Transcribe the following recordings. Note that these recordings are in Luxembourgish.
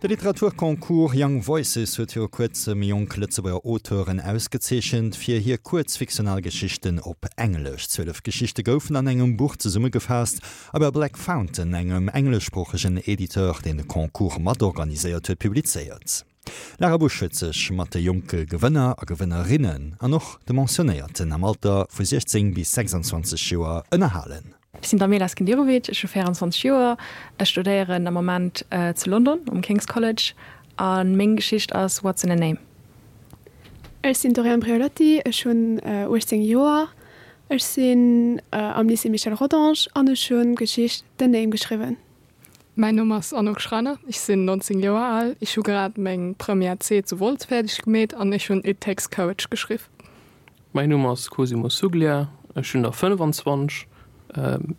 De Literaturconcours Young Voices huet viru kuerzem jonk Lëtzebuerger Auteuren ausgezeechent fir hir kuerz fiktional Geschichten op Englesch. 12 Geschichte goufen an engem Buch zesummegefaasst a bei Black Fountain, engem engleschsproochegen Editeur, deen de Concours matorganiséiert huet, publizéiert. D'Lara Busch huet sech mat de jonke Gewënner a Gewënnerinnen an och de Mentionnéierten am Alter vu 16 bis 26 Joer ënnerhalen. Ech sinn d'Amela Skenderovic, ech hu 24 Joer, ech studéieren am Moment zu London um King's College a meng Geschicht ass What's in a Name? Ech sinn d'Doriane Briolotti, ech hunn 18 Joer, ech sinn am Lycée Michel Rodange an ech hunn d'Geschicht The Name geschriwwen. Mäin Numm ass Anouk Schreiner, ech sinn 19 Joer al, ech hu grad meng Première C zu Wolz fäerdeg gemeet an ech hunn It Takes Courage geschriww. Mäin Numm ass Cosimo Suglia, ech hunn der 25.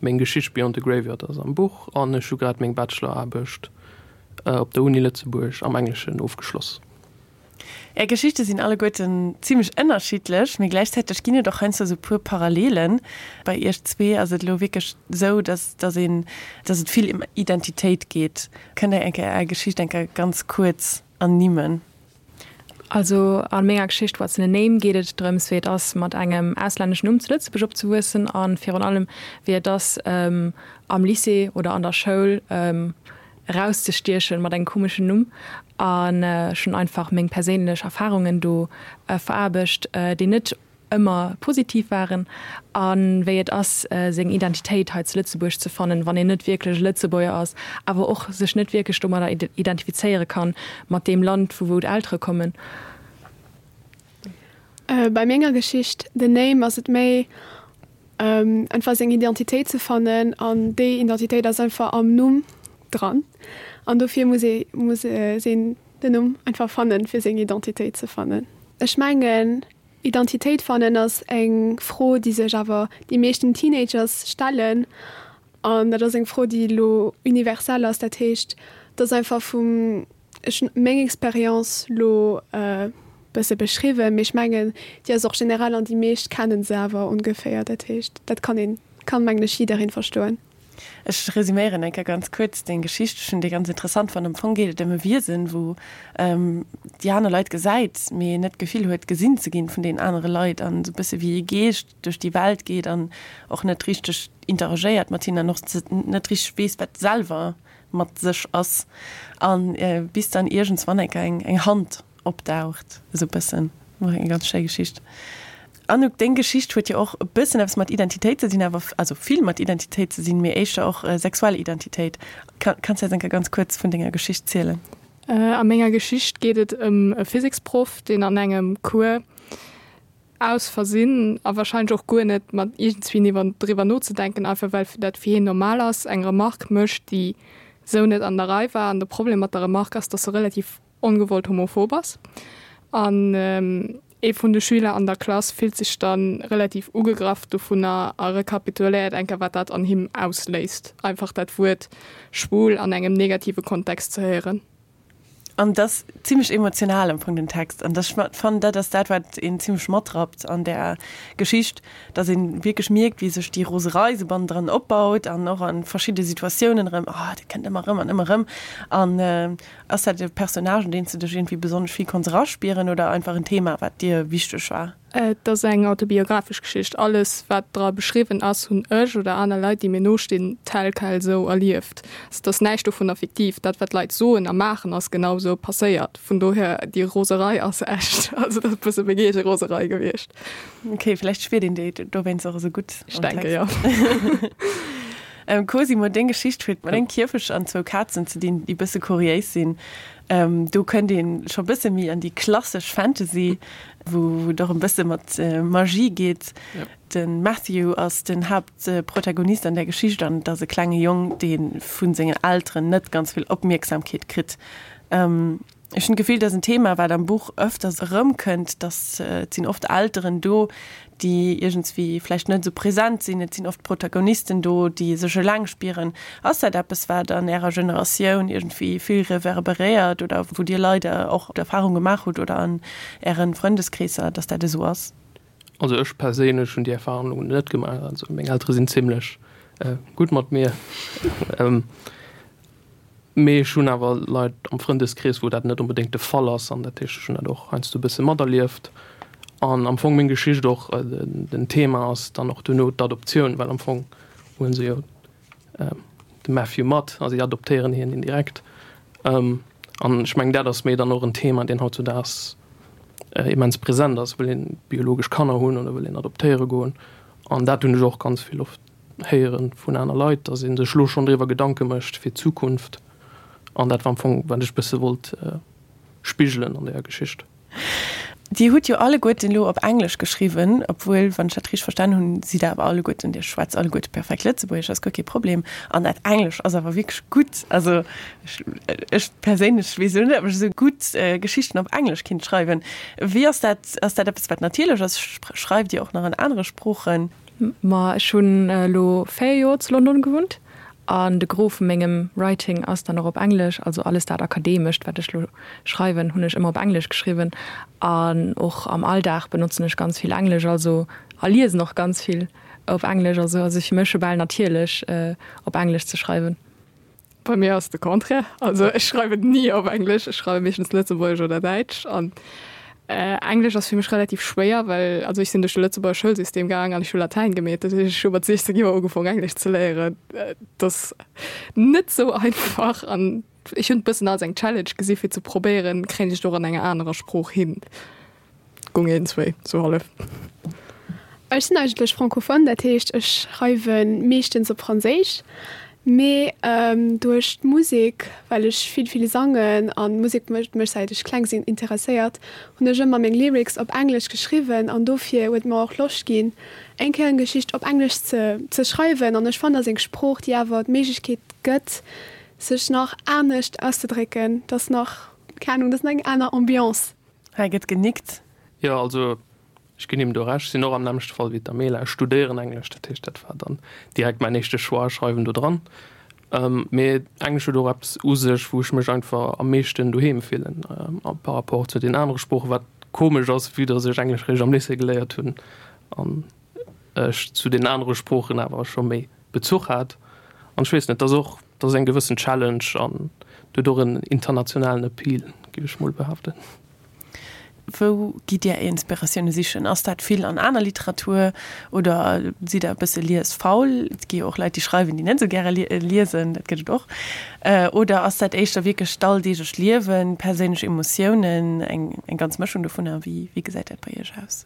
Meng Geschicht Beyond the Graveyard ass am Buch an ech hu grad meng Bacheloraarbecht op der Uni Lëtzebuerg am Engleschen ofgeschloss. Är Geschichte sinn alleguerten zimmlech ënnerschiddlech, mee gläichzäiteg ginn et och heiansdo esou puer Parallelen. Bei iech zwee ass et elo wierklech esou, dass dass een dass et vill ëm Identitéit geet. Kënnt der eng Kéier är Geschicht eng Kéier ganz kuerz ernimmen? Also a menger Geschicht What's in a Name geet et drëms, wéi et ass, mat engem auslänneschen Numm zu Lëtzebuerg opzewuessen a virun allem, wéi et ass, am Lycée oder an der Schoul erauszestiechen mat engem komeschen Numm. An ech hunn einfach meng perséinlech Erfarungen do veraarbecht, déi net ëmmer positiv waren a wéi et ass, seng Identitéit hei zu Lëtzebuerg ze fannen, wann een net wierklech e Lëtzebuerger ass, awer och sech net wierklech domadder identifizéiere kann, mat deem Land, vu wou d'Eltere kommen. Bei menger Geschicht The Name ass et méi einfach seng Identitéit ze fannen an déi Identitéit ass einfach am Numm dran an dofir muss ee muss een den Numm einfach fannen, fir seng Identitéit ze fannen. Ech mengen Identitéit fannen ass eng Fro, déi sech awer déi meeschten Teenagers stellen. An dat ass eng Fro, déi elo universell ass. Dat heescht, et ass einfach vum, ech hunn meng Expérience elo e bësse beschriwwen, mee ech mengen, déi ass och generell an déi meescht kenne se awer ongeféier. Dat heescht, dat kann een, kann mengen ech jiddereen verstoen. Ech resuméieren eng Kéier ganz kuerz deng Geschicht. Ech hunn déi ganz interessant fonnt. Am Fong geet et ëm e Wiesen, wou déi aner Leit gesäit, mee net d'Gefill huet, gesinn ze ginn vun deenen anere Leit an esou e bësse wéi e Geescht duerch déi Welt geet an och net richteg interagéiert mat hinnen an och net richteg weess, wat selwer mat sech ass. A bis dann iergendswann eng Kéier eng Hand opdaucht, esou e bëssen. War eng ganz schéi Geschicht. Anouk, deng Geschicht huet jo och e bëssen eppes mat Identitéit ze dinn, awer, also vill mat Identitéit ze sinn, mee éischter och sexuell Identitéit. Kanns de eis eng Kéier ganz kuerz vun denger Geschicht zielen? A menger Geschicht geet et ëm e Physiksproff, deen an engem Cours aus Versinn, a wahrscheinlech och guer net mat iergendswéi iwwer driwwer nozedenken, einfach well dat fir hien normal ass, eng Remark mécht, déi sou net an der Rei war. An de Problem mat der Remark ass, dass se relativ ongewollt homophob ass. An ee vun de Schüler an der Klass fillt sech da relativ ugegraff dovunner a rekapituléiert eng Kéier, wat dat an him ausléist, einfach dat Wuert schwul an engem negative Kontext ze héieren. An et ass zimmlech emotional am Fong den Text. An ech fannen, dat ass dat, wat een zimmlech matrappt an där Geschicht, dass een wierklech mierkt, wéi sech déi Roserei sou bannendran opbaut an och a verschidde Situatiounen erëm, oh, dat kënnt ëmmer erëm an ëmmer erëm. An Ass dat e Personnage, un deen s de dech iergendwéi besonnesch vill konns eraspieren oder einfach en Thema, wat dir wichteg war? Et ass eng autobiographesch Geschicht. Alles, wat dra beschriwwen ass, hunn ech oder aner Leit, déi mir nostinn, tel quel esou erlieft. Also et ass näischt dovunner fiktiv. Dat, wat d'Leit soen a maachen, ass genau esou passéiert. Vun dohier, déi Roserei ass echt. Also dat ass e bësse meng eege Roserei gewiescht. Ok, vläicht spiert een déi dowéinst och esou gutt Ech denke jo. Cosimo, deng Geschicht huet mat engem Kierfecht an zwou Kazen ze dinn, déi bësse kuriéis sinn. Do kënnt ee scho bësse méi an déi klassesch Fantasy, wou et och e bësse mat Magie geet. De Matthew ass den Haaptprotagonist an där Geschicht an et ass e klenge Jong, dee vu sengen Elteren net ganz vill Opmierksamkeet kritt. Ech hunn d'Gefill, dat ass en Thema, wat am Buch ëfters erëmkënnt, dass et sinn oft Elteren do, déi iergendswéi vläicht net esou present sinn. Et sinn oft Protagonisten do, déi sech eleng spieren. Ass dat eppes, wat an Ärer Generatioun iergendwéi vill reverberéiert oder wou Dir leider och d'Erfahrung gemaach hutt oder an Äre Frëndeskreesser, dass dat esou ass? Also ech perséinlech hunn déi Erfahrung elo net gemaach. Also meng Eltere sinn zimlech gutt mat mir. Mee ech hunn awer Leit am Frëndeskrees, wou dat net onbedéngt de Fall ass an dat heescht, ech hunn dat och heiansdo e bësse materlieft. An am Fong meng Geschicht och, den Thema ass dann och duerno d'Adoptioun, well am Fong huele se jo de Matthew mat a si adoptéieren hien indirekt. An ech mengen, dat ass méi dann och en Thema, deen hautzudaags immens present ass, Wëll een biologesch Kanner hunn oder wëll een adoptéiere goen? An dat hunn ech och ganz vill oft héiere vun aner Leit, datt ee sech elo schonn driwwer Gedanke mécht fir d'Zukunft. An dat war am Fong, wat ech e bësse wollt spigelen an deeër Geschicht. Dir hutt jo alleguerten elo op Englesch geschriwwen, obwuel, wann ech dat richteg verstan hunn, sidd Der awer alleguerten, Dir schwätzt alleguerte perfekt Lëtzebuergesch, ass guer kee Problem. An dat Englesch ass awer wierklech gutt. Also ech, ech perséinlech weess elo net, ob ech esou gutt Geschichten op Englesch kinnt schreiwen. Wéi ass dat? Ass dat eppes, wat natierlech ass? Schreift Dir och nach an anere Sproochen? Ma ech hunn elo 4 Joer zu London gewunnt an de Gros vu mengem Writing ass dann och op Englesch. Also alles dat Akademescht, wat ech lo schreiwen, hunn ech ëmmer op Englesch geschriwwen. An och am Alldag benotzen ech ganz vill Englesch, also a liesen och ganz vill op Englesch. Also ass et fir mech scho bal natierlech op Englesch ze schreiwen. Bei mir ass de Contraire. Also ech schreiwen ni op Englesch, ech schreiwe meeschtens Lëtzebuergesch oder Däitsch. An Englesch ass fir mech relativ schwéier, well also ech sinn duerch de Lëtzebuerger Schoulsystem gaang an ech hu Latäin gemeet. Dat heescht, ech hu mat 16 Joer ugefaang Englesch ze léieren. Dat ass net sou einfach an ech hunn et bëssen als eng Challenge gesi fir ze probéieren, kréien ech et och an enger anerer Sprooch hin. Gung eenzwéi, sou hallef. Ech sinn eigentlech Francophone, dat heescht ech schreiwe meeschtens op Franséisch, mee duerch d'Musek, well ech vill vill sangen an d'Musek mécht mech säit ech kleng sinn interesséiert, hunn ech ëmmer meng Lyrics op Englesch geschriwwen an dofir huet mer och Loscht ginn eng Kéier eng Geschicht op Englesch ze ze schreiwen an ech fannen ass eng Sprooch déi awer d'Méiglechkeet gëtt sech nach anescht auszedrécken, dass nach, keng Ahnung, dass nach eng aner Ambiance. Hei gëtt genickt. Jo, also ech ginn him do Recht. Ech sinn och am nämmlechte Fall wéi d'Amela. Ech studéieren Englesch, dat heescht, dat war dann direkt mäin éischte Choix, schreiwen do dran. Mee Englesch huet och eppes u sech, wou ech mech einfach am meeschten doheem fillen par rapport zu den anere Sproochen, wat komesch ass, vue dass ech Englesch réischt am Lycée geléiert hunn an ech zu den anere Sproochen awer scho méi Bezuch hat. An ech weess net, et ass och Et ass eng gewëssen Challenge an huet och en internationalen Appeal, géif ech mol behaapten. Wou gitt Dir Är Inspiratioune sichen? Ass dat vill an aner Literatur oder sidd Der e bësse liesfaul? Et gi jo och Leit, déi schreiwen, déi net esou gäre liesen, dat gëtt et och. Oder ass dat éischter wierklech d'alldeeglecht Liewen, perséinlech Emotiounen, eng ganz Mëschung dovunner? Wéi gesäit dat bei Iech aus?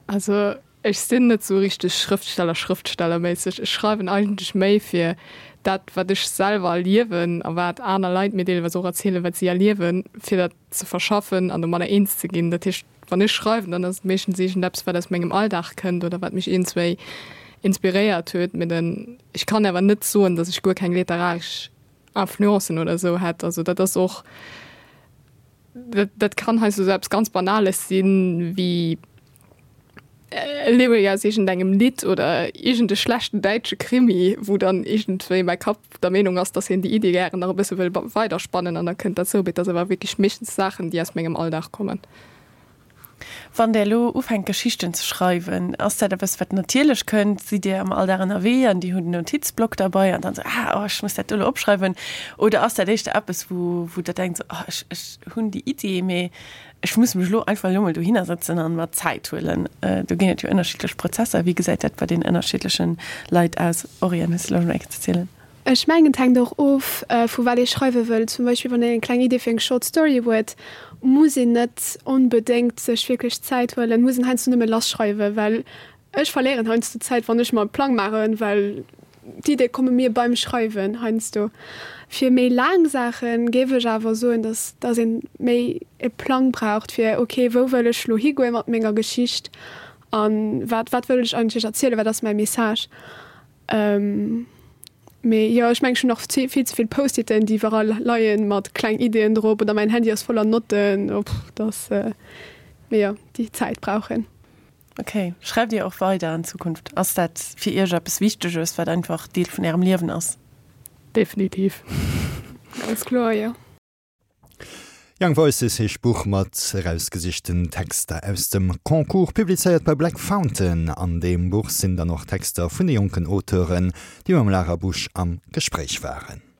Also Ech sinn net sou richteg Schrëftsteller, Schrëftstellerméisseg. Ech schreiwen eigentlech méi fir dat, wat ech selwer erliewen a wat aner Leit mir deelweis och erzielen, wat si erliewen, fir dat ze verschaffen an domadder eens ze ginn. Dat heescht, wann ech schreiwen, dann ass et meeschtens iergendeppes, wat aus mengem Alldag kënnt oder wat mech iergendswéi inspiréiert huet. Mee den, ech kann awer net soen, datt ech guer keng literaresch Influencen oder esou hätt. Also dat ass och, dat, dat kann heiansdo esou eppes ganz Banales sinn, wéi e Lyric aus iergendengem Lidd oder iergend e schlechten däitsche Krimi, wou dann iergendwéi mäi Kapp der Meenung ass, dass hien déi Iddi gären nach e bësse wëll weiderspannen an da kënnt dat sou. Mee et ass awer wierklech meeschtens Saachen, déi aus mengem Alldag kommen. Wann Der elo ufänkt Geschichten ze schreiwen, ass dat eppes, wat natierlech kënnt? Sidd Dir am Alldag ënnerwee an Dir hutt en Notizblock derbei an dann esou, ah, oh, ech muss dat do elo opschreiwen? Oder ass dat éischter eppes, wou, wou Der denkt, oh, ech, ech hunn déi Iddi, mee Ech muss mech elo einfach elo mol dohinner sëtzen an mer Zäit huelen. Do ginn et jo ënnerschiddlech Prozesser. Wéi gesäit dat bei den ënnerschiddlechen Leit aus? Oriane, hues de Loscht mol eng Kéier ze zielen? Ech mengen et hänkt och of vu wat ee schreiwe wëll. Zum Beispill wann een eng kleng Idee fir eng Short Story huet, muss een net onbedéngt sech wierklech Zäit huelen, muss een heiansdo nëmme lass schreiwen, well Ech verléieren heiansdo Zäit, wann ech mer e Plang maachen, well d'Iddie komme mir beim Schreiwen heiansdo. Fir méi laang Saache géif ech awer soen, dass dass ee méi e Plang braucht, fir ok, wou wëll ech lo higoe mat menger Geschicht a wat wat wëll ech eigentlech erzielen, wat ass mäi Message. Mee jo, ech mengen, ech hunn nach vill ze vill Post-iten, déi iwwerall leien, mat kleng Iddien drop oder mäin Handy ass voller Notten, dass, mee jo, déi Zäit brauch een. Ok. Schreift Dir och weider an Zukunft? Ass dat fir Iech eppes Wichteges, wat einfach Deel vun Ärem Liewen ass? Definitiv. Ganz kloer, jo. Young Voices heescht d'Buch mat erausgesichten Texter aus dem Concours, publizéiert bei Black Fountain. An deem Buch sinn dann och Texter vun de jonken Auteuren, déi mam Lara Busch am Gespréich waren.